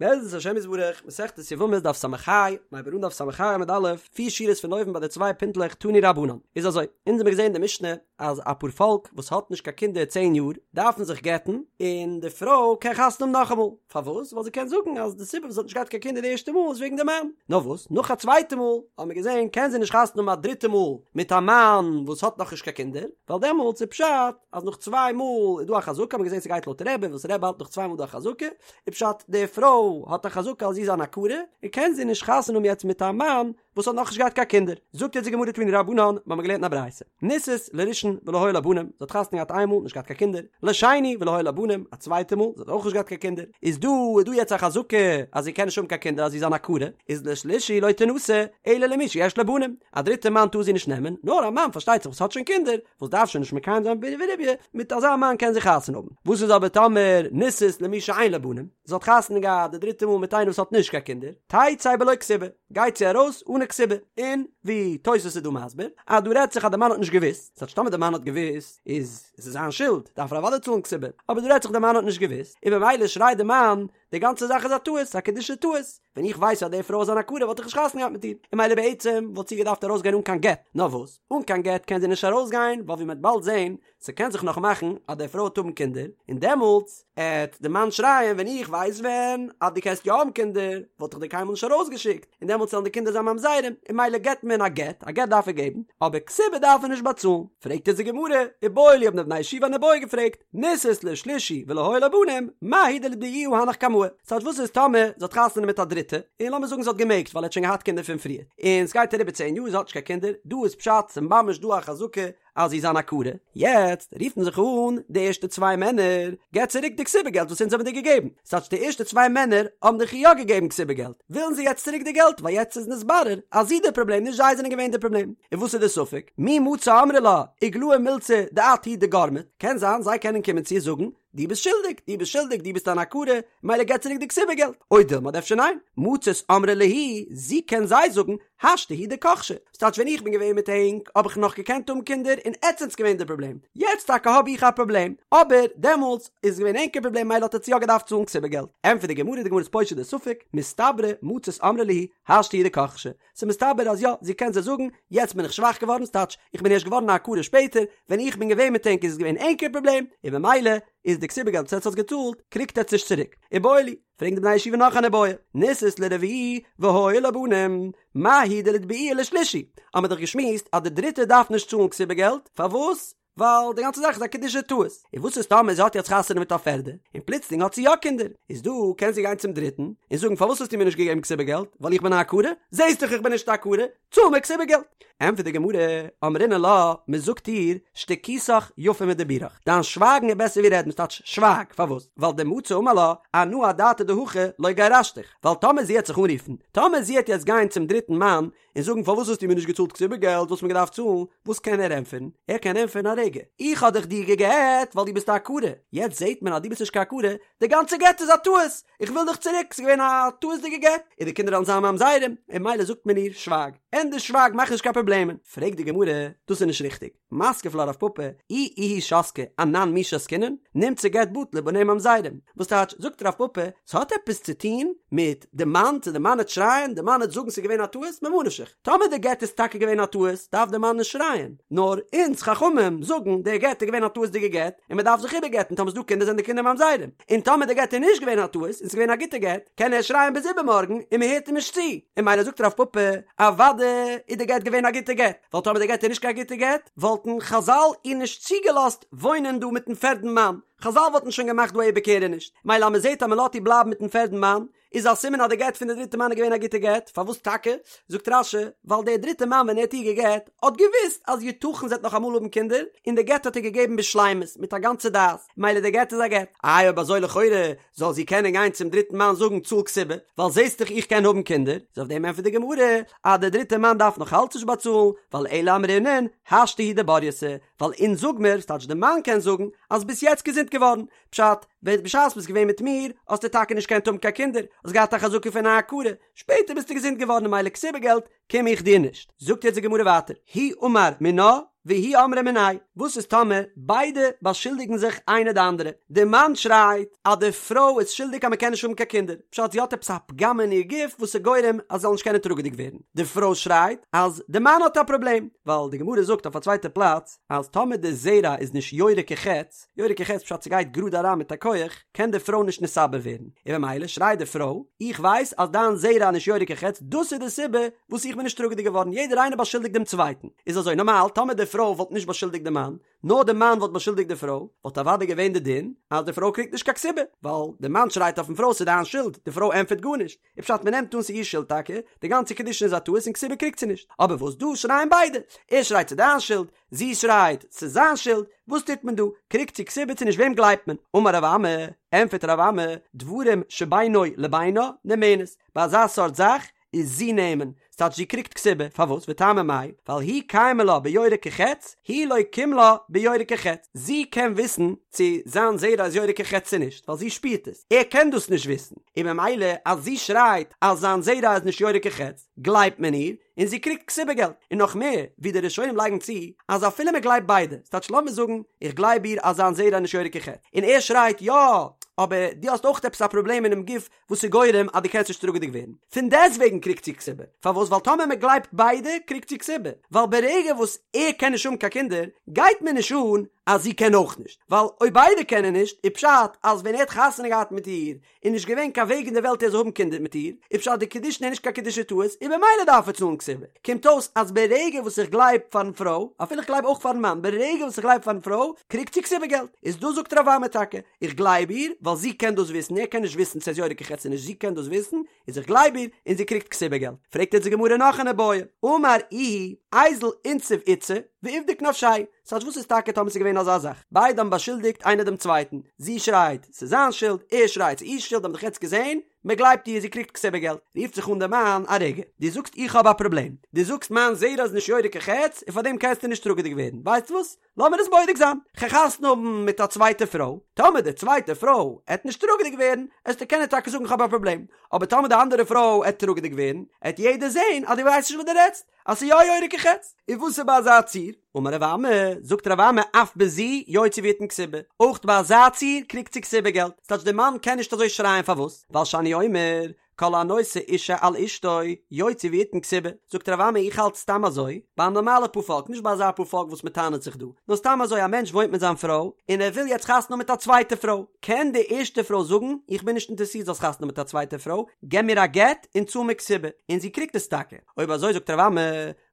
בעזרת השם יתברך, מסכת יבמות דף ס"ה, מ'הייבט אן דף ס"ה עמוד א', פיר שורות פון אויבן ביי די צוויי פינטלעך תנו רבנן. איז אזוי, אונז האמיר געזען אין די משנה אז א פארפאלק וואס האט נישט קיין קינדער צען יאר דארפן זיך גט'ן, און די פרוי קען חתונה האבן נאכאמאל. פארוואס? ווייל זי קען זאגן אז די סיבה וואס זי האט נישט געהאט קיין קינדער די ערשטע מאל איז וועגן די מאן. נאר וואס, נאך א צווייטע מאל האמיר געזען קען זי נישט חתונה האבן א דריטע מאל מיט א מאן וואס האט נאכנישט קיין קינדער, ווייל דעמאלטס איז פשט אז נאך צוויי מאל איז דא א חזקה, האמיר געזען ס'גייט לויט רבי וואס רבי האלט נאך צוויי מאל איז דא א חזקה, איז פשט די פרוי האט א חזקה אז זי איז אן עקרה, און קען זי נישט חתונה האבן יעצט מיט א מאן וואס האט נאכנישט געהאט קיין קינדער. זאגט יעצט די גמרא תנו רבנן, מ'האמיר געלערנט אין א ברייתא, נישאת לראשון ולא היו לה בנים, זי האט חתונה געהאט איין מאל, נישט געהאט קיין קינדער, לשני ולא היו לה בנים, א צווייטע מאל, זי האט אויך נישט געהאט קיין קינדער, איז דא איז דא יעצט א חזקה אז זי קען נישט האבן קיין קינדער אז זי איז אן עקרה, איז לשלישי לא תנשא אלא למי שיש לו בנים, א דריטע מאן טאר זי נישט נעמען, נאר א מאן פארשטייט זיך וואס האט שוין קינדער, וואס דארף שוין נישט מקיים זיין פריה ורביה, מיט אזא מאן קען זי חתונה האבן. וואס איז אבער טאמער נישאת למי שאין לו בנים, זי האט חתונה געהאט די דריטע מאל מיט איינער וואס האט נישט קיין קינדער, תצא בלא כתובה, גייט זי ארויס אן א כתובה, און ווי תוס' איז דא מסביר, אז דא רעדט זיך אז די מאן האט נישט געוואוסט, ס'טייטש טאמער די מאן האט געוואוסט איז עס זיין שולד, דארף ער אוודאי צאלן כתובה, אבער דא רעדט זיך די מאן האט נישט געוואוסט, און במילא שרייט די מאן, די גאנצע זאך איז א טעות, א קידושי טעות, ווען איך ווייס אז די פרוי איז אן עקרה וואלט איך נישט חתונה געהאט מיט איר, און ממילא בעצם וואלט זי געדארפט ארויסגיין אן קיין גט, נאר וואס, אן קיין גט קען זי נישט ארויסגיין, ווייל ווי מ'עט באלד זען, ס'קען זיך נאך מאכן אז די פרוי וועט האבן קינדער, און דעמאלטס עט די מאן שרייען ווען איך ווייס ווען אז דו קענסט יא האבן קינדער וואלט איך דיר קיינמאל נישט ארויסגעשיקט, און דעמאלטס וועלן די קינדער זיין ממזרים, און ממילא געבט מען א גט, א גט דארף ער געבן, אבער כתובה דארף ער נישט באצאלן. פרעגט אונז די גמרא, איבעיא להו האבן די בני ישיבה אן איבעיא געפרעגט, נישאת לשלישי ולא היו לה בנים, מהו דליתבעוה הנך קמאי? ס'טייטש וואס איז טאמער זי האט חתונה מיט א דריטע, און לאמיר זאגן זי האט געמעגט ווייל ער האט שוין געהאט קינדער פון פריער, און ס'גייט אריבער צען יאר זי האט נישט קיין קינדער, דא איז פשט ס'ממש דא א חזקה אז זי איז אן עקרה, יעצט רופן זיך אן די ערשטע צוויי מענער, געב צוריק די כתובה געלט וואס אונז האבן דיר געגעבן, ס'טייטש די ערשטע צוויי מענער האבן דאך יא געגעבן כתובה געלט, ווילן זיי יעצט צוריק די געלט ווייל יעצט איז נתברר אז זי די פראבלעם נישט זיי זענען געווען די פראבלעם, און וואס איז די ספק? מי מצו אמרי לה איגלאי מילתא דאת הוא דגרמת, קען זיין זיי קענען קומען צו איר זאגן דו ביסט שולדיג, דו ביסט שולדיג, דו ביסט אן עקרה, מילא געב צוריק די כתובה געלט, או דילמא אדער אפשר ניין, מצית אמרה להו, זי קען זיי זאגן, השתא הוא דכחשי, ס'טייטש ווען איך בין געווען מיט ענק האב איך נאך געקענט האבן קינדער און עטס זענטס געווען די פראבלעם, יעצט טאקע האב איך א פראבלעם, אבער דעמאלטס איז געווען ענקער פראבלעם מילא האט עטס יא געדארפט צאלן כתובה געלט. ענטפערט די גמרא, די גמרא איז פושט די ספק, מסתברא מצית אמרה להו, השתא הוא דכחשי, ס'איז מסתבר אז יא, זי קען זיי זאגן, יעצט בין איך שוואך געווארן, ס'טייטש, איך בין ערשט געווארן א עקרה שפעטער, ווען איך בין געווען מיט ענק איז עס געווען ענקער פראבלעם, און במילא איז די כתובה געלט וואס עטס האטס געצאלט, קריגט עטס נישט צוריק. איבעיא להו, פרעגן די בני הישיבה נאך אן איבעיא, נישאת לרביעי והיו לה בנים, מהו דליתבעוה לשלישי, האמיר דאך געשמועסט אז די דריטע דארף נישט צאלן כתובה געלט, פארוואס? ווייל די גאנצע זאך איז א קידושי טעות, און וואס איז טאמער זי האט יעצט חתונה מיט א פערדע, און פלוצלינג האט זי יא קינדער, איז דא קען זי גיין צום דריטן, און זאגן פארוואס האסטו מיר נישט געגעבן כתובה געלט, ווייל איך בין א עקרה? זעסט דאך איך בין נישט א עקרה, צאל מיר כתובה געלט! ענטפערט די גמרא, אמרינן לה, מען זאגט איר, שתיקותך יפה מדיבורך, דיין שווייגן איז בעסער ווי רעדן, ס'טייטש שווייג, פארוואס? ווייל דמצי אמר לה, אנא אדעתא דהכי לא גירשתיך, ווייל טאמער זי העט זיך אנרופן, טאמער זי העט יעצט גיין צום דריטן מאן, און זאגן פארוואס האסטו מיר נישט געצאלט כתובה געלט וואס מ'האט געדארפט צאלן, וואס קען ער ענטפערן? ער קען ענטפערן א רגע, איך האב דאך דיר גע'גט ווייל דו ביסט א עקרה, יעצט זעט מען אז דו ביסט נישט קיין עקרה, די גאנצע גט איז א טעות, איך וויל דיך צוריק, ס'איז געווען א טעות'דיגע גט, און די קינדער וועלן זיין ממזרים, און מילא זאגט מען איר, שווייג, ענדערש שווייג מאך נישט קיין פראבלעמען, פרעגט די גמרא, דאס איז נישט ריכטיג. מתקיף לה רב פפא, אי איהי שתקא, אנן מי שתקינן, נמצא גט בטל ובניה ממזרים. וואס טייטש, זאגט רב פפא, ס'האט עפעס צו טוהן מיט די מאן, צו די מאן העט שרייען, די מאן העט זאגן ס'איז געווען א טעות, ממה נפשך, טאמער די גט איז טאקע געווען א טעות, דארף די מאן נישט שרייען, נאר אונז חכמים זאגן, די גט איז געווען א טעות'דיגע גט, און מ'דארף זיך איבערגט'ן, טאמער ס'דא קינדער זענען די קינדער ממזרים, און טאמער די גט איז נישט געווען א טעות, און ס'איז געווען א גוטע גט, קען ער שרייען ביז איבערמארגן, און מ'הערט אים נישט צו, און מילא זאגט רב פפא, אוודאי איז די גט געווען א גוטע גט. ווייל טאמער די גט איז נישט קיין גוטע גט, וואלטן חזל איר נישט צוגעלאזט וואוינען דא מיטן פערדן מאן, חזל וואלטן שוין געמאכט דא א איבערקערעניש, מילא אז מען זעט אז מען לאזט איר בלייבן מיטן פערדן מאן, איז א סימן אז די גט פון די דריטע מאן איז געווען א גוטע גט, פארוואס טאקע? זאגט רש"י, ווייל דער דריטע מאן ווען ער האט איר געגט, האט געוואוסט אז יתכן זי וועט נאך אמאל האבן קינדער, און די גט האט ער געגעבן בשלימות, מיט א גאנצע דעת, מילא די גט איז א גט. איי אויב אזוי לכאורה זאל זי קענען גיין צום דריטן מאן זאגן צאל כתובה, ווייל זעסט דאך איך קען האבן קינדער, איז אויף דעם ענטפערט די גמרא אז דער דריטער מאן דארף נאך אלץ נישט באצאלן, ווייל אלא אמרינן השתא הוא דברייתא, ווייל אונז זאג מיר, ס'טייטש די מאן קען זאגן, אז ביסט יעצט געזונט געווארן, פשט, ווען בשעת ביסט געווען מיט מיר, האסטו טאקע נישט געקענט האבן קיין קינדער, האסט געהאט א חזקה פון א עקרה, שפעטער ביסטו געזונט געווארן און מילא כתובה געלט קום איך דיר נישט. זאגט יעצט די גמרא ווייטער, הוא אמר מינה. והיא אמרה מיניה, וואס איז טאמער ביידע באשולדיגן זיך איינער די אנדערע, די מאן שרייט אז די פרוי איז שולדיג אז מען קען נישט האבן קיין קינדער, פשט זי האט עפעס א פגם אין איר גוף וואס איז גורם אז זי זאל נישט קענען טראגעדיג ווערן, די פרוי שרייט אז די מאן האט א פראבלעם, ווייל די גמרא זאגט אויף א צווייטע פלאץ אז טאמער די זרע איז נישט יורה כחץ, יורה כחץ פשט ס'גייט גראד אריין מיט א כח, קען די פרוי נישט נתעבר ווערן, און במילא שרייט די פרוי, איך ווייס אז דיין זרע איז נישט יורה כחץ, דאס איז די סיבה וואס איך בין נישט טראגעדיג געווארן, יעדער איינער באשולדיגט דעם צווייטן, איז אזוי נארמאל, טאמער די פרוי וואלט נישט באשולדיגט די מאן, נאר די מאן וואלט באשולדיגט די פרוי, וואלט אוודאי געווען די דין אז די פרוי קריגט נישט קיין כתובה, ווייל די מאן שרייט אויפן פרוי ס'איז דיין שולד, די פרוי ענטפערט גארנישט, איז פשט מ'נעמט אן ס'איז איר שולד טאקע, די גאנצע קידושין איז א טעות און כתובה קריגט זי נישט, אבער וואס דא שרייען ביידע, ער שרייט ס'איז דיין שולד, זי שרייט, ס'איז זיין שולד, וואס טוט מען דא? קריגט זי כתובה צו נישט וועם גלייבט מען? אמר רב אמי, ענטפערט רב אמי, דברים שבינו לבינה נאמנת, ביי אזא סארט זאך איז זי נאמן, ס'טייטש זי קריגט כתובה, פארוואס? וטעמא מאי, ווייל הוא קיימא לה ביורה כחץ, היא לא קים לה ביורה כחץ, זי קען וויסן צו זיין זרע איז יורה כחץ צו נישט, ווייל זי שפירט עס, ער קען דאס נישט וויסן, און ממילא אז זי שרייט אז זיין זרע איז נישט יורה כחץ, גלייבט מען איר, און זי קריגט כתובה געלט, און נאך מער, ווי די ראשונים לייגן צו, אז אפילו מען גלייבט ביידע, ס'טייטש לאמיר זאגן, איך גלייב איר אז זיין זרע איז נישט יורה כחץ, און ער שרייט יא, אבער דו האסט אויך עפעס א פראבלעם אינעם גוף וואס איז גורם אז דו קענסט נישט טראגעדיג ווערן, פון דעסטוועגן קריגט זי כתובה, פארוואס? ווייל טאמער מען גלייבט ביידע קריגט זי כתובה, ווייל ברגע וואס ער קען נישט האבן קיין קינדער, גייט מיר נישט אן אז זי קען אויך נישט, ווייל אויב ביידע קענען נישט, איז פשט אז ווען ער האט חתונה געהאט מיט איר, איז נישט געווען קיין וועג אין די וועלט ער זאל האבן קינדער מיט איר, איז פשט די קידושין איז נישט קיין קידושי טעות, און במילא דארף ער צאלן כתובה. קומט אויס אז ברגע וואס איך גלייב פארן פרוי, אפילו איך גלייב אויך פארן מאן, ברגע וואס איך גלייב פארן פרוי, קריגט זי כתובה געלט. איז דא זאגט רב אמי טאקע, איך גלייב איר, ווייל זי קען דאס וויסן, ער קען נישט וויסן צו עס איז יורה כחץ צו נישט, זי קען דאס וויסן, איז איך גלייב איר, און זי קריגט כתובה געלט. פרעגט יעצט די גמרא נאך אן איבעיא, אמר איהו, איזיל אינסיב איתתא, ואיבדוק נפשיה. ס'טייטש וואס איז טאקע טאמער ס'איז געווען אזא זאך? ביידע האבן באשולדיגט איינער דעם צווייטן, זי שרייט ס'איז זיין שולד, ער שרייט ס'איז איר שולד, האבן דאך יעצט געזען, מ'גלייבט איר, זי קריגט כתובה געלט. רופט זיך אן דער מאן, א רגע, דו זאגסט איך האב א פראבלעם, דו זאגסט מיין זרע איז נישט יורה כחץ, און פארדעם קענסטו נישט טראגעדיג ווערן, ווייסט וואס? לאמיר עס בודק זיין, כ'גיי חתונה האבן מיט א צווייטע פרוי, טאמער די צווייטע פרוי עט נישט טראגעדיג ווערן, עסטו קענען טאקע זאגן כ'האב א פראבלעם, אבער טאמער די אנדערע פרוי עט טראגעדיג ווערן, עט יעדער זען אז דו ווייסט נישט וואס דו רעדסט. אז ס'איז יא יורה כחץ. און וואס איז ביי אזא ציור? אמר רב אמי, זאגט רב אמי אף בזו יוציא ויתן כתובה, אויך ביי אזא ציור קריגט זי כתובה געלט, ס'טייטש דער מאן קען נישט אזוי שרייען פארוואס? ווייל שאני אומר כל הנושא אישה על אשתו יוציא ויתן כתובה, זאגט רב אמי איך האלט סתם אזוי, ביי א נארמאלע פארפאלק, נישט ביי אזא פארפאלק וואס מ'טענה'ט זיך דא, נאר סתם אזוי א מענטש וואוינט מיט זיין פרוי, און ער וויל יעצט חתונה האבן מיט א צווייטע פרוי, קען די ערשטע פרוי זאגן איך בין נישט אינטערעסירט זאלסט חתונה האבן מיט א צווייטע פרוי, געב מיר א גט און צאל מיר כתובה, און זי קריגט עס טאקע. אויב אזוי זאגט רב אמי,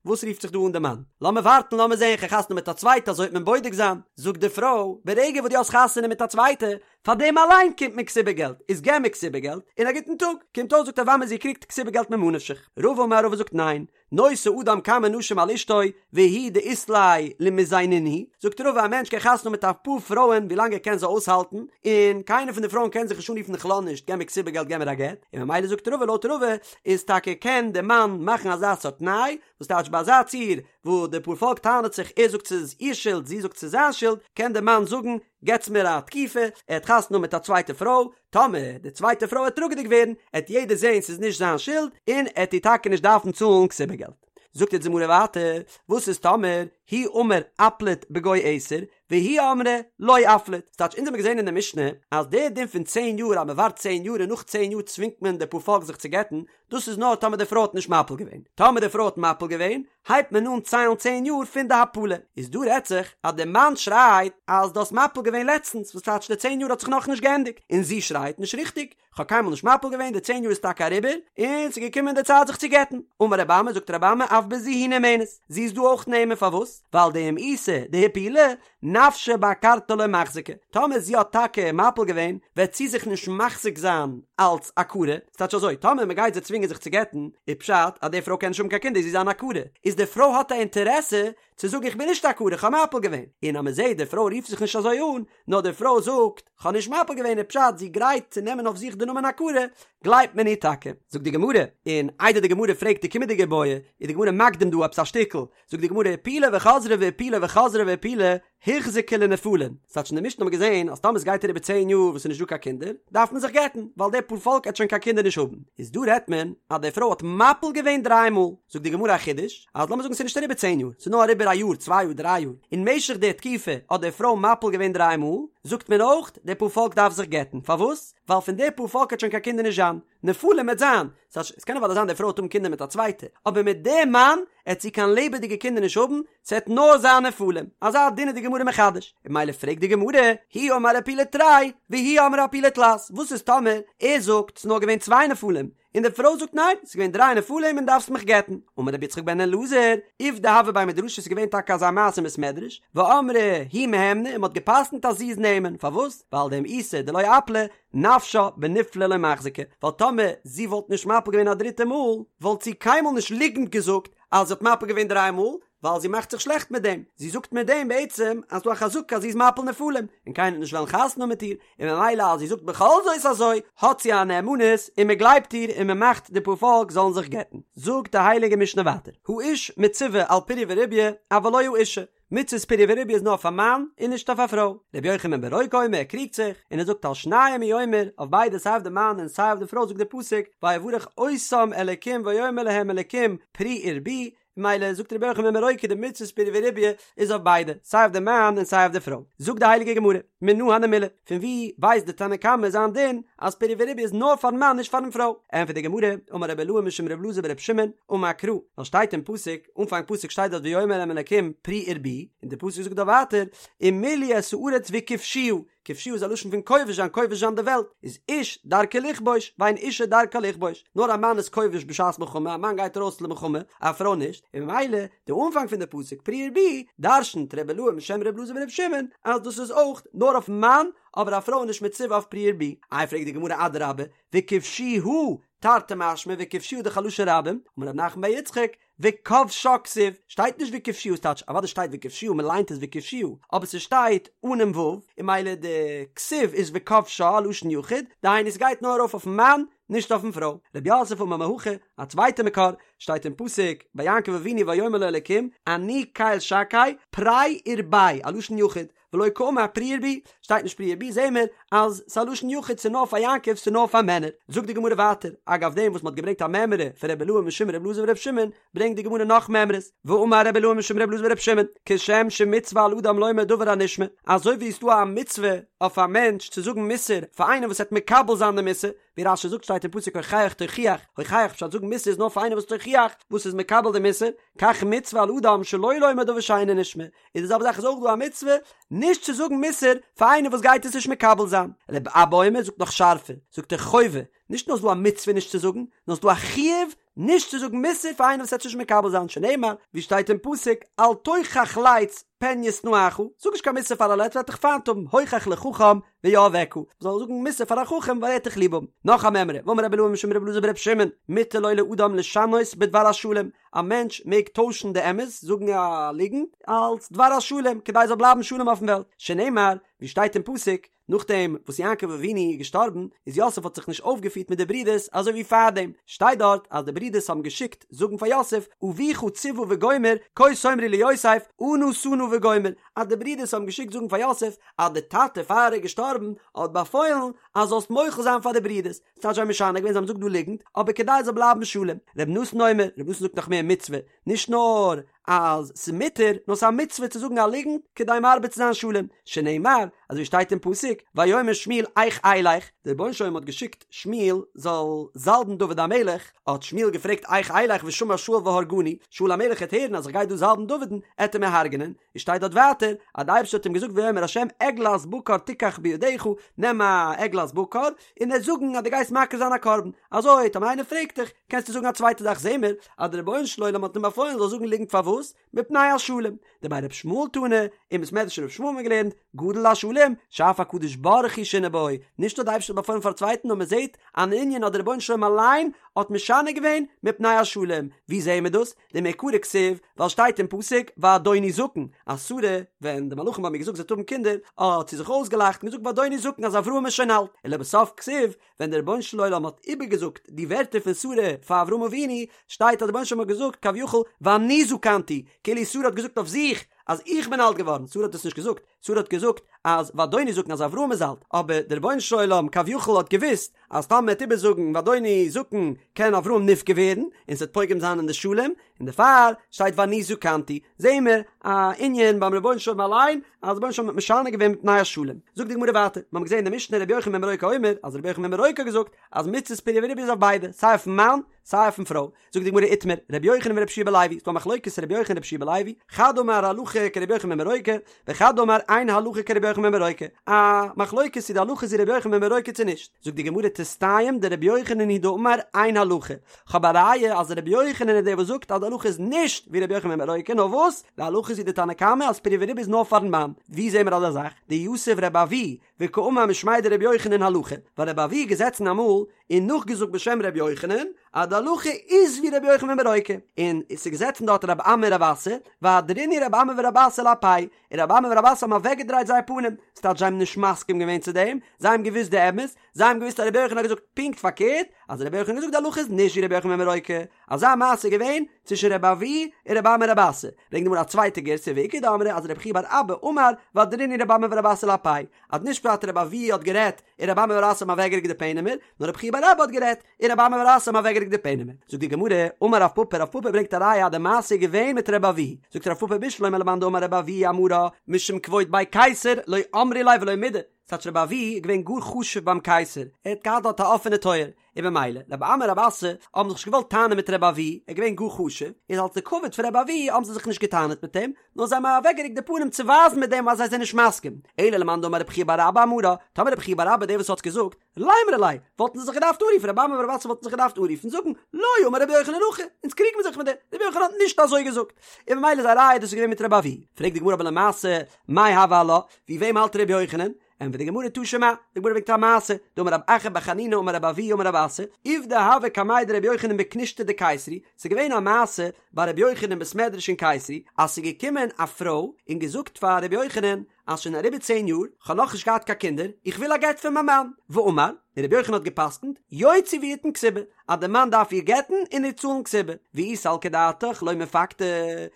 וואס רופט זיך דא אן די מאן? לאמיר ווארטן לאמיר זען כ'גיי חתונה מיט א צווייטע אזוי וועט מען בודק זיין. זאגט די פרוי, ברגע וואס דו האסט חתונה מיט א צווייטע, פאר דעם אליין קומט מיר כתובה געלט, איז געב מיר כתובה געלט, און א גוטן טאג. קומט אויס זאגט רב אמי זי קריגט כתובה געלט ממה נפשך. רבא אמר רבא זאגט ניין, נושא אדם כמה נשים על אשתו, והוא דאית ליה למיזיינינהו, זאגט רבא א מענטש קען חתונה האבן מיט אפאר פרויען ווילאנג ער קען זיי אויסהאלטן, און קיינער פון די פרויען קען זיך נישט אנרופן איך לאז נישט, געב מיר כתובה געלט געב מיר א גט, און ממילא זאגט רבא לויט רבא איז טאקע קען די מאן מאכן אזא סארט תנאי, וואס טייטש ביי אזא ציור וואו די פארפאלק טענה'ט זיך ער זאגט ס'איז איר שולד זי זאגט ס'איז זיין שולד, קען די מאן זאגן געטס מיר א תקופה, ער האט חתונה מיט א צווייטע פרוי, טאמער די צווייטע פרוי עט טראגעדיג ווערן, עט יעדער זעהן ס'איז נישט זיין שולד, און עט איר טאקע נישט דארפן צאלן כתובה געלט. זאגט יעצט די גמרא ווייטער, וואס איז טאמער הוא אמר אפליט בגו עשר, והיא אמרה לא אפליט, ס'טייטש אונז האבן געזען אין די משנה אז דער דין פון צען יאר אז מ'ווארט צען יאר און נאך צען יאר צווינגט מען די פארפאלק זיך צו גט'ן, דאס איז נאר טאמער די פרוי האט נישט מפיל געווען, טאמער די פרוי האט מפיל געווען הייבט מען אן ציילן צען יאר פון די הפלה, איז דא רעדט זיך אז די מאן שרייט אז דו האסט מפיל געווען לעצטנס וואס טייטש די צען יאר האט זיך נאכנישט געענדיגט, און זי שרייט נישט ריכטיג, כ'האב קיינמאל נישט מפיל געווען, די צען יאר איז טאקע אריבער, און ס'איז געקומען די צייט זיך צו גט'ן. אמר רבי אמי, זאגט רבי אמי, אף בזו היא נאמנת, זי איז דא אויך נאמן, פארוואס? ווייל דאם איתא דהפילה, נפשה בעקרתה לא מחזיקה, טאמער זי האט טאקע מפיל געווען, וועט זי זיך נישט מחזיק זיין אלץ עקרה, ס'טייטש אזוי, טאמער מ'גייט זי צווינגען זיך צו גט'ן, איז פשט אז די פרוי קען נישט האבן קיין קינדער, זי איז אן עקרה, איז די פרוי האט א אינטערעסע צו זאגן איך בין נישט עקרה, איך האב מפיל געווען, און אז מ'זעט די פרוי רופט זיך נישט אזוי אן, נאר די פרוי זאגט, כ'האב נישט מפיל געווען איז פשט זי גרייט צו נעמען אויף זיך די נאמען עקרה, גלייבט מען איר טאקע. זאגט די גמרא, און איידער די גמרא פרעגט די קומענדיגע איבעיא, איז די גמרא מקדים דא עפעס א שטיקל, זאגט די גמרא, הפילה וחזרה והפילה וחזרה והפילה, הוחזקה לנפלים, ס'טייטש אין די משנה האט מען געזען אז טאמער ס'גייט אריבער צען יאר וואס ס'איז נישט דא קיין קינדער, דארף מען זיך גט'ן, ווייל די פארפאלק עט שוין קיין קינדער נישט האבן. איז דא רעדט מען אז די פרוי האט מפיל געווען דריי מאל, זאגט די גמרא א חידוש, אז לאמיר זאגן ס'איז נישט אריבער צען יאר, ס'איז נאר אריבער א יאר, צוויי יאר, דריי יאר, אין משך די תקופה האט די פרוי מפיל געווען דריי מאל, זאגט מען אויך, די פארפאלק דארף זיך גט'ן, פארוואס? ווייל פון די פארפאלק עט שוין קיין קינדער נישט זיין, נפלים עט זיין, ס'טייטש, עס קען אוודאי זיין די פרוי עט האבן קינדער מיט א צווייטע, אבער מיט די מאן עט זי קיין לעבעדיגע קינדער נישט האבן, ס'עט נאר זיין נפלים, אזא דין איז די גמרא מחדש, און ממילא פרעגט די גמרא, הוא אמר הפילה תרי, והיא אמרה הפילה תלת, וואס איז טאמער ער זאגט ס'איז נאר געווען צוויי נפלים, און די פרוי זאגט ניין, ס'איז געווען דריי נפלים און דארפסט מיך גט'ן, אמר רבי יצחק בן אלעזר, עובדא הוה בי מדרשא ס'איז געווען טאקע אזא מעשה אין בית מדרש, ואמרי היא מהימנא און מ'האט גע'פסק'נט אז זי איז נאמן, פארוואס? ווייל דאם איתא דלא אפלה, נפשה בנפלי לא מחזיקה, ווייל טאמער זי וואלט נישט מפיל געווען א דריטע מאל, וואלט זי קיינמאל נישט ליגנט געזאגט אז זי האט מפיל געווען דריי מאל, ווייל זי מאכט זיך שלעכט מיט דעם, זי זאגט מיט דעם בעצם אז ס'דא א חזקה אז זי איז מפיל נפלים, און קיינער וועט נישט וועלן חתונה האבן מיט איר, און ממילא אז זי זאגט בכל זאת אזוי, האט זי א נאמנות און מען גלייבט איר און מען מאכט די פארפאלק זאלן זיך גט'ן. זאגט די הייליגע משנה ווייטער, האיש מצווה על פריה ורביה, אבל לא האשה, מצות פריה ורביה איז נאר אויף א מאן און נישט אויף א פרוי. רבי יוחנן בן ברוקה אומר ער קריגט זיך און ער זאגט על שניהם הוא אומר, אויף ביידע סיי אויף די מאן און סיי אויף די פרוי זאגט דער פסוק ויברך אותם אלקים ויאמר להם אלקים פרו ורבו, ממילא זאגט רבי יוחנן בן ברוקה די מצות פריה ורביה איז אויף ביידע סיי אויף די מאן און סיי אויף די פרוי. זאגט די הייליגע גמרא, מנא הני מילי, פון ווי ווייסט די תנא קמא זיין דין אז פריה ורביה איז נאר פארן מאן נישט פארן פרוי? ענטפערט די גמרא, אמר רבי אילעא משום רבי אלעזר ברבי שמעון, אמר קרא, ווייל שטייט אין פסוק, אנפאנג פסוק שטייט דארט ויאמר אליהם אלקים פרו ורבו, און די פסוק זאגט דארט ווייטער ומלאו את הארץ וכבשוה, כבשוה איז א לשון פון כובש זיין, כובש זיין די וועלט, איז איש דרכו לכבוש, ואין אישה דרכה לכבוש, נאר א מאן איז כובש בשעת מלחמה, א מאן גייט ארויס למלחמה, א פרוי נישט, און ממילא די אנפאנג פון די פסוק פרו ורבו, דרשנ'ט רבי אילעא משם רבי אלעזר ברבי שמעון אז דאס איז אויך נאר אויפן מאן, אבער א פרוי איז נישט מצווה אויף פרו ורבו. איי פרעגט די גמרא אדרבה, וכבשוה תרתי משמע וכבשוה דאך א לשון רבים, אמר רב נחמן בר יצחק, וכבשה כתיב, שטייט נישט וכבשוה ס'טייטש אוודאי שטייט וכבשוה מען ליינט עס וכבשוה, אבער ס'שטייט אנעם ו', און ממילא די כתיב איז וכבשה א לשון יחיד, דהיינו ס'גייט נאר ארויף אויפן מאן, נישט אויפן פרוי. רב יוסף אמר מהכא, א צווייטע מקור, שטייט אין פסוק ביי יעקב אבינו ויאמר לו אלקים, אני קל שקי, פרה ורבה, א לשון יחיד, ולא קאמר פרו ורבו, שטייט נישט פרו ורבו זעהן מיר אז ס'איז א לשון יחיד ס'איז נאר פאר יעקב ס'איז נאר פאר מענער. זאגט די גמרא ווייטער, אגב דעם וואס מ'האט געברענגט א מימרא פון רבי אילעא משום רבי אלעזר ברבי שמעון, ברענגט די גמרא נאך מימרות, ואמר רבי אילעא משום רבי אלעזר ברבי שמעון, כשם שמצוה על אדם לומר דבר הנשמע, אזוי ווי ס'איז דא א מצוה אויף א מענטש צו זאגן מוסר פאר איינער וואס וועט מקבל זיין די מוסר, ווי רש"י זאגט שטייט אין פסוק הוכח תוכיח, הוכח פשט זאגן מוסר איז נאר פאר איינער וואס תוכיח, וואס איז מקבל די מוסר, כך מצוה על אדם שלא לומר דבר שאינו נשמע, איז די זעלבע זאך איז אויך דא א מצוה נישט צו זאגן מוסר פאר איינער וואס גייט עס נישט מקבל זיין. רבי אבא אומר זאגט נאך שארפער, זאגט ער חובה, נישט נאר איז דא א מצוה נישט צו זאגן, נאר ס'איז דא א חיוב נישט צו זאגן מוסר פאר איינער וואס וועט עס נישט מקבל זיין, שנאמר, ווי שטייט אין פסוק, אל תוכח לץ פן ישנאך, זאג נישט קיין מוסר פאר א לץ וועט דיך פיינט האבן, הוכח לחכם ויאהבך, מ'זאל זאגן מוסר פאר א חכם ווייל ער וועט דיך ליב האבן. נאך א מימרא, ואמר רבי אילעא משום רבי אלעזר ברבי שמעון, מותר לו לאדם לשנות בדבר השלום, א מענטש מעג טוישן די אמת, זאגן א ליגנט, אלס דבר השלום, כדי ס'זאל בלייבן שלום אויפן וועלט, שנאמר, ווי שטייט אין פסוק, נאכדעם וואס יעקב אבינו איז געשטארבן, איז יוסף האט זיך נישט אויפגעפירט מיט די ברידערס אזוי ווי פארדעם, שטייט דארט אז די ברידערס האבן געשיקט זאגן פאר יוסף, אביך צוה וגומר, כה תאמרו ליוסף, אנא שא נא וגומר, אז די ברידערס האבן געשיקט זאגן פאר יוסף, אז די טאטע פאר ער איז געשטארבן האט באפוילן אז זאלסט מוחל זיין פאר די ברידערס, ס'טייטש זיי האבן משנה געווען זיי האבן געזאגט דא ליגנט, אבער כדי עס זאל בלייבן שלום. ר' נתן אומר, ר' נתן זאגט נאך מער מצוה, נישט נאר אז ס'איז מותר, נאר ס'איז א מצוה צו זאגן א ליגנט כדי מרבה צו זיין שלום, שנאמר, אזוי ווי שטייט אין פסוק, ויאמר שמואל איך אלך, דער רבונו של עולם האט געשיקט שמואל זאל זאלבן דוד המלך, האט שמואל געפרעגט איך אלך ושמע שאול והרגני, שאול המלך העט הערן אז איך גיי דא זאלבן דוד'ן, עט ער מיר הרג'נען, איז שטייט דארט ווייטער אז די אייבערשטער האט אים געזאגט ויאמר ה' עגלת בקר תיקח בידך, נעם א עגלת בקר, און וועסט זאגן אז דו גייסט מקריב זיין א קרבן, אזוי טאמער איינער פרעגט דיך, קענסטו זאגן א צווייטע זאך זעהן מיר אז דער רבונו של עולם האט אים באפוילן זאל זאגן ליגנט פארוואס? מפני השלום, דבי ר' ישמעאל תנא, אין בית מדרש ר' ישמעאל האט מען געלערנט, גדול השלום, שאף הקדוש ברוך הוא שינה בו, נישט נאר די אייבערשטער האט באפוילן פאר א צווייטן נאר מען זעהט אן ענין אז דער רבונו של עולם אליין האט משנה געווען מפני השלום, ווי זעהן מיר דאס? דמעיקרא כתיב, ווייל שטייט אין פסוק ואדוני זקן, אז שרה, ווען די מלאכים האבן איר געזאגט זי וועט האבן קינדער, האט זי זיך אויסגעלאכט און געזאגט ואדוני זקן אז אברהם איז שוין אלט, ולבסוף כתיב, ווען דער רבונו של עולם האט איבערגעזאגט די ווערטער פון שרה פאר אברהם אבינו, שטייט אז דער רבונו של עולם האט געזאגט כביכול ואני זקנתי, כאילו שרה האט געזאגט אויף זיך. אז איך בין אלט געווארן, שרה האט דאס נישט געזאגט, שרה האט געזאגט אז ואדוני זקן אז אברהם איז אלט, אבער דער רבונו של עולם כביכול האט געוואוסט אז טאמער מ'וועט איבערזאגן ואדוני זקן קען אברהם נפגע ווערן און ס'וועט פוגם זיין אין די שלום, און דערפאר שטייט ואני זקנתי, זעהן מיר א ענין ביים רבונו של עולם אליין אז דער רבונו של עולם האט משנה געווען מפני השלום. זאגט די גמרא ווייטער, מיר האבן געזעהן אין די משנה רבי יוחנן בן ברוקה אומר אז רבי יוחנן בן ברוקה האט געזאגט אז מצות פריה ורביה איז אויף ביידע, סיי אויפן מאן סיי אויפן פרוי, זאגט די גמרא איתמר, רבי יוחנן ורבי יהושע בן לוי, ס'דא א מחלוקת רבי יוחנן רבי יהושע בן לוי, חד אמר הלכה כרבי יוחנן בן ברוקה, וחד אמר אין הלכה כרבי יוחנן בן ברוקה, א מחלוקת צו די הלכה איז ווי רבי יוחנן בן ברוקה צו נישט, זאגט די גמרא תסתיים דרבי יוחנן הוא דאמר אין הלכה, כ'האב א ראיה אז רבי יוחנן איז דער וואס זאגט אז די הלכה איז נישט ווי רבי יוחנן בן ברוקה, נאר וואס? די הלכה איז ווי די תנא קמא אז פריה ורביה איז נאר פארן מאן, ווי זעהן מיר אזא זאך? דיתיב רבי אבהו וקאמר משמיה דרבי יוחנן הלכה, ווייל רבי אבהו איז געזעצן אמאל און נאכגעזאגט בשם רבי יוחנן אז די הלכה איז ווי רבי יוחנן בן ברוקה, און עס איז געזעצן דארט רבי אמי און רבי אסי, ואהדרינהו רבי אמי ורבי אסי לאפייהו, און רבי אמי און רבי אסי האבן אוועקגעדרייט זייער פנים, ס'טייטש זיי האבן נישט מסכים געווען צו דעם, זיי האבן געוואוסט די אמת, זיי האבן געוואוסט אז רבי יוחנן האט געזאגט פונקט פארקערט, אז רבי יוחנן האט געזאגט די הלכה איז נישט ווי רבי יוחנן בן ברוקה, אזא מעשה איז געווען צווישן רבי אבהו און רבי אמי רבי אסי, ברענגט די גמרא א צווייטע גירסא ואיכא דאמרי אז רבי חייא בר אבא אמר ואהדרינהו רבי אמי ורבי אסי לאפייהו, אז נישט פשט רבי אבהו האט גערעדט און רבי אמי ורבי אסי האבן אוועקגערוקט די פענעמער, נאר רבי חייא בר אבא האט גערעדט און רבי אמי ורבי אסי האבן אוועקגערוקט די פענעמער. זאגט די גמרא, אמר רב פפא, רב פפא ברענגט א ראיה אז די מעשה איז געווען מיט רבי אבהו, זאגט רב פפא בשלמא למאן דאמר רבי אבהו אמרה משום כבוד בי קיסר לא אמרי ליה ולא מידי, ס'טייטש רבי אבהו איז געווען גאר חשוב ביים קייסער, ער האט געהאט דארט א אפענע טויער, און במילא, רבי אמי און רבי אסי האבן זיך נישט געוואלט טענה'ן מיט רבי אבהו, ער איז געווען גאר חשוב, איז אלס די כבוד פון רבי אבהו האבן זיי זיך נישט געטענה'ט מיט אים, נאר זיי האבן אוועקגערוקט די פנים צו ווייזן מיט דעם אז זיי זענען נישט מסכים. אלא למאן דאמר רבי חייא בר אבא אמרה, טאמער רבי חייא בר אבא דער וואס האט געזאגט, לימרו ליה, וואלטן זיי זיך געדארפט אנרופן, רבי אמי ורבי אסי וואלטן זיך געדארפט אנרופן זאגן, לא אמר רבי יוחנן הכי, אונז קריגן מיר זיך מיט דיר, רבי יוחנן האט נישט אזוי געזאגט. און במילא איז א ראיה דאס איז געווען מיט רבי אבהו. פרעגט די גמרא אבער למעשה, מאי הוי עלה, ווי וועם האלט רבי יוחנן? ענטפערט די גמרא תא שמע, די גמרא ברענגט א מעשה, דאמר רב אחא בר חנינא אמר רבי אבהו אמר רבי אסי, עובדא הוה קמיה דרבי יוחנן בכנישתא דקיסרי, ס'איז געווען א מעשה ביי רבי יוחנן אין בית מדרש אין קיסרי, אז ס'איז געקומען א פרוי און געזאגט פאר רבי יוחנן אז שוין אריבער צען יאר, כ'האב נאכנישט געהאט קיין קינדער, איך וויל א גט פון מיין מאן, ואמר, און רבי יוחנן האט גע'פסק'נט, יוציא ויתן כתובה, אז די מאן דארף איר גט'ן און איר צאלן כתובה, ואי סלקא דעתך לא מפקדה,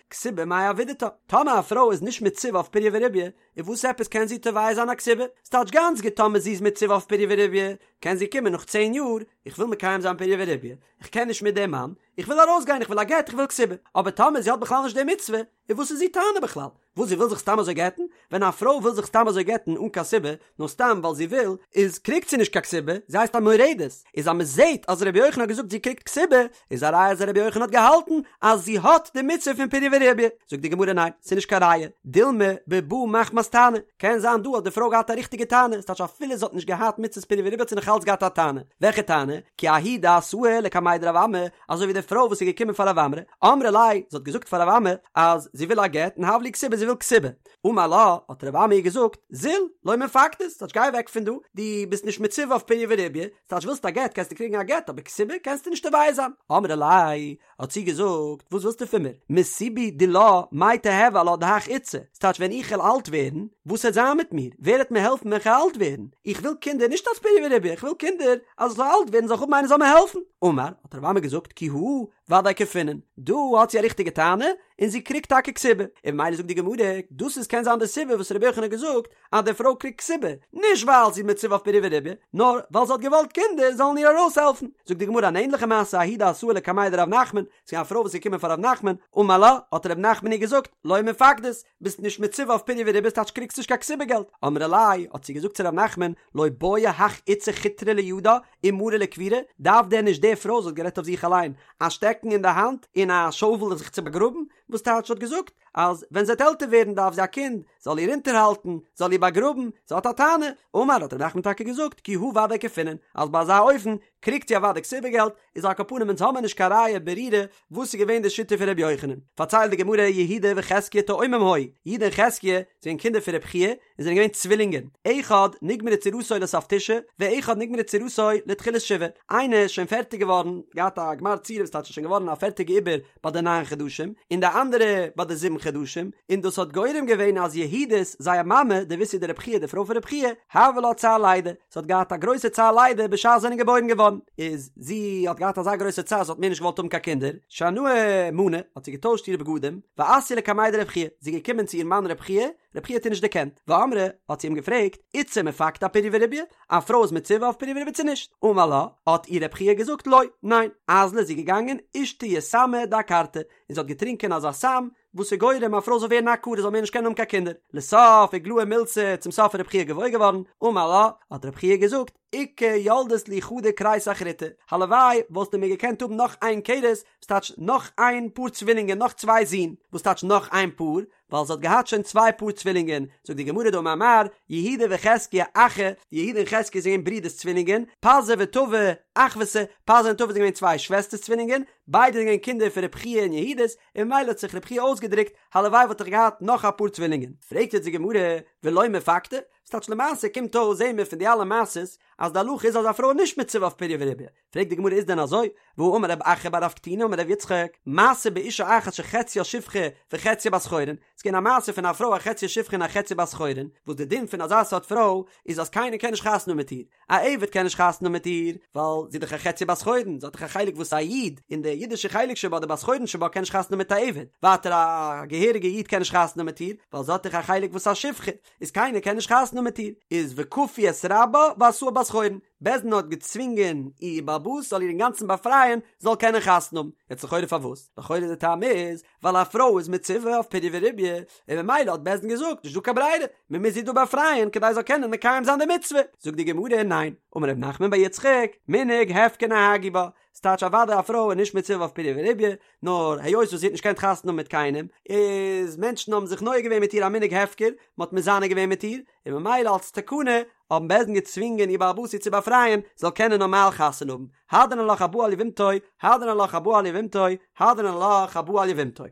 כתובה מאי עבידתה, טאמער א פרוי איז נישט מצווה אויף פריה ורביה, און וואס עפעס קען זי תובע זיין א כתובה? ס'טייטש גאנץ גוט טאמער זי איז מצווה אויף פריה ורביה, קען זי קומען נאך צען יאר, איך וויל מקיים זיין פריה ורביה, איך קען נישט מיט דעם מאן, איך וויל ארויסגיין, איך וויל א גט, איך וויל כתובה. אבער טאמער זי האט בכלל נישט די מצוה, איז וואס איז איר טענה בכלל? וואס זי וויל זיך סתם אזוי גט'ן? ווען א פרוי וויל זיך סתם אזוי גט'ן אן קיין סיבה, נאר סתם ווייל זי וויל, איז קריגט זי נישט קיין כתובה, זי הייסט א מורדת. איז אז מ'זעט אז רבי יוחנן האט געזאגט זי קריגט כתובה, איז א ראיה אז רבי יוחנן האט געהאלטן אז זי האט די מצוה פון פריה ורביה. זאגט די גמרא ניין, ס'איז נישט קיין ראיה, דילמא בבאה מחמת טענה, קען זיין דא האט די פרוי געהאט א ריכטיגע טענה, ס'טייטש אפילו זי האט נישט געהאט מצות פריה ורביה האט זי נאך אלץ געהאט א טענה, וועלכע טענה? כי ההיא דאתאי לקמיה דרב אמי, אזוי ווי די פרוי וואס איז געקומען פאר רב אמי, אמרה ליה, זי האט געזאגט פאר רב אמי אז זי וויל א גט און הב לי כתובה זי וויל כתובה, אמר לה, האט רב אמי איר געזאגט, זיל, לא מפקדת, ס'טייטש גיי אוועק פון דא, דו ביסט נישט מצווה אויף פריה ורביה, ס'טייטש ווילסט א גט קענסטו קריגן א גט אבער כתובה קענסטו נישט תובע זיין. אמרה ליה, האט זי געזאגט, וואס ווילסטו פון מיר? מסיבי דילה מאי תיהוי עלה דהך איתתא, ס'טייטש ווען איך וועל אלט ווערן, וואס וועט זיין מיט מיר? ווער וועט מיר העלפן ווען כ'וועל אלט ווערן? איך וויל קינדער נישט אלס פריה ורביה, איך וויל קינדער אז איך זאל אלט ווערן זאל איך האבן איינער זאל מיר העלפן. אמר, האט רב אמי געזאגט, כי הא, ודאי כפינן, דא האט זי א ריכטיגע טענה, און זי קריגט טאקע כתובה, און ממילא זאגט די גמרא, דאס איז קען זיין די סיבה וואס רבי יוחנן האט געזאגט אז די פרוי קריגט כתובה, נישט ווייל זי איז מצווה אויף פריה ורביה, נאר ווייל זי האט געוואלט קינדער זאלן איר ארויסהעלפן. זאגט די גמרא אן ענליכע מעשה ההיא דאתאי לקמיה דרב נחמן, ס'איז געווען א פרוי וואס איז געקומען פאר רב נחמן, אמר לה, האט רב נחמן איר געזאגט, לא מפקדת, ביסט נישט מצווה אויף פריה ורביה ס'טייטש קריגסט נישט קיין כתובה געלט, אמרה ליה, האט זי געזאגט צו רב נחמן, לא בעיא הך איתתא חוטרא לידה ומרא לקבורה, דארף דען נישט די פרוי, זי האט גערעדט אויף זיך אליין, א שטעקן אין די האנט און א שאובל זיך צו באגראבן, וואס טייטש האט געזאגט אז ווען זי וועט עלטער ווערן דארף זי א קינד זאל איר אונטערהאלטן, זאל איר באגראבן, זי האט א טענה, אמר האט ר' נחמן טאקע געזאגט כי הא ודאי כפינן, אז ביי אזא אופן קריגט זי אוודאי כתובה געלט, איז על כל פנים אונז האמיר נישט קיין ראיה ברורה וואס איז געווען די שיטה פון ר' יוחנן, פארציילט די גמרא יהודה וחזקיה תאומים היו, יהודה און חזקיה זענען קינדער פון ר' חייא, און זענען געווען צווילינגען, אחד נגמרה צורתו לסוף תשעה, ואחד נגמרה צורתו לתחילת שבעה, איינער איז שוין פערטיג געווארן, געהאט א גמר צורה וואס טייטש איז שוין געווארן א פערטיגע עובר ביי די ניין חדשים, און די אנדערע ביי די זיבן חדשים, און דאס האט גורם געווען אז יהודית, זייער מאמע, דביתהו דרב חייא די פרוי פון רב חייא, הוה לה צער לידה, זי האט געהאט א גרויסע צער לידה בשעת זיי זענען געבוירן געווארן, איז זי האט געהאט אזא גרויסע צער זי האט מער נישט געוואלט האבן קיין קינדער, שנאי מאני, האט זי געטוישט אירע בגדים, ואתיא לקמיה דרב חייא, זי איז געקומען צו איר מאן רב חייא, רב חייא האט איר נישט דערקענט, ואמרה, האט זי אים געפרעגט, איתתא מפקדא אפריה ורביה, א פרוי איז מצווה אויף פריה ורביה צו נישט? אמר לה, האט איר רב חייא געזאגט, לא, ניין, אזלא איז זי געגאנגען, אישתיא סמא דעקרתא, און זי האט געטרינקען אזא סם, וואס איז גורם א פרוי זאל ווערן א עקרה זאל מער נישט קענען האבן קיין קינדער, לסוף איגלאי מילתא, צום סוף איז רב חייא געוואויר געווארן, אמר לה, האט רב חייא געזאגט, איכא ילדת לי חדא כריסא אחריתא, הלוואי וואלסטו מיר געקענט האבן נאך איין כרס, וואס טייטש נאך איין פאר צווילינגען נאך צוויי זין, וואס טייטש נאך איין פאר? ווייל זי האט געהאט שוין צוויי פאר צווילינגען, זאגט די גמרא דאמר מר, יהודה וחזקיה אחי, יהודה און חזקיה זענען געווען ברידערס צווילינגען, פזי וטבי אחוותא, פזי און טבי זענען געווען צוויי שוועסטערס צווילינגען, ביידע זענען געווען קינדער פון רב חייא און יהודית, און ממילא האט זיך רב חייא אויסגעדרוקט, הלוואי וואלט איך געהאט נאך א פאר צווילינגען. פרעגט יעצט די גמרא, ולא מפקדא? ס'טייטש למעשה קומט אויס זעהן מיר פון די אלע מעשות אז די הלכה איז אז א פרוי איז נישט מצווה אויף פריה ורביה, פרעגט די גמרא איז דען אזוי? והאמר רב אחא בר רב קטינא אמר רב יצחק, מעשה באשה אחת שחציה שפחה וחציה בת חורין, ס'איז געווען א מעשה פון א פרוי א חציה שפחה און א חציה בת חורין, וואס די דין פון אזא סארט פרוי איז אז קיינער קען נישט חתונה האבן מיט איר, א עבד קען נישט חתונה האבן מיט איר, ווייל זי איז דאך א חציה בת חורין, זי האט דאך א חלק וואס א איד, און די אידישע חלק שבה, די בת חורין שבה, קען נישט חתונה האבן מיט א עבד, ווייטער א געהעריגע איד קען נישט חתונה האבן מיט איר, ווייל זי האט דאך א חלק וואס א שפחה, איז קיינער קען נישט חתונה האבן מיט איר, איז וכפו את רבה ועשאה בת חורין, בית דין האט געצווינגען איר בעל הבית זאל איר אינגאנצן באפרייען זאל קענען חתונה האבן, יעצט לכאורה פארוואס? לכאורה די טעם איז ווייל א פרוי איז מצווה אויף פריה ורביה, און ממילא האט בית דין געזאגט נישט דא קיין ברירה, מען מוז איר דא באפרייען כדי זאל קענען מקיים זיין די מצוה, זאגט די גמרא ניין, אמר ר' נחמן בר יצחק, מנהג הפקר נהגו בה, ס'טייטש אוודאי א פרוי איז נישט מצווה אויף פריה ורביה, נאר היות וואס זי האט נישט געקענט חתונה האבן מיט קיינעם, איז מענטשן האבן זיך נוהג געווען מיט איר א מנהג הפקר, מען האט מזנה געווען מיט איר, און ממילא אלס תקנה האבן בית דין געצווינגען איר בעל הבית איר צו באפרייען, זאל קענען נארמאל חתונה האבן, הדרן עלך הבא על יבמתו, הדרן עלך הבא על יבמתו, הדרן עלך הבא על יבמתו.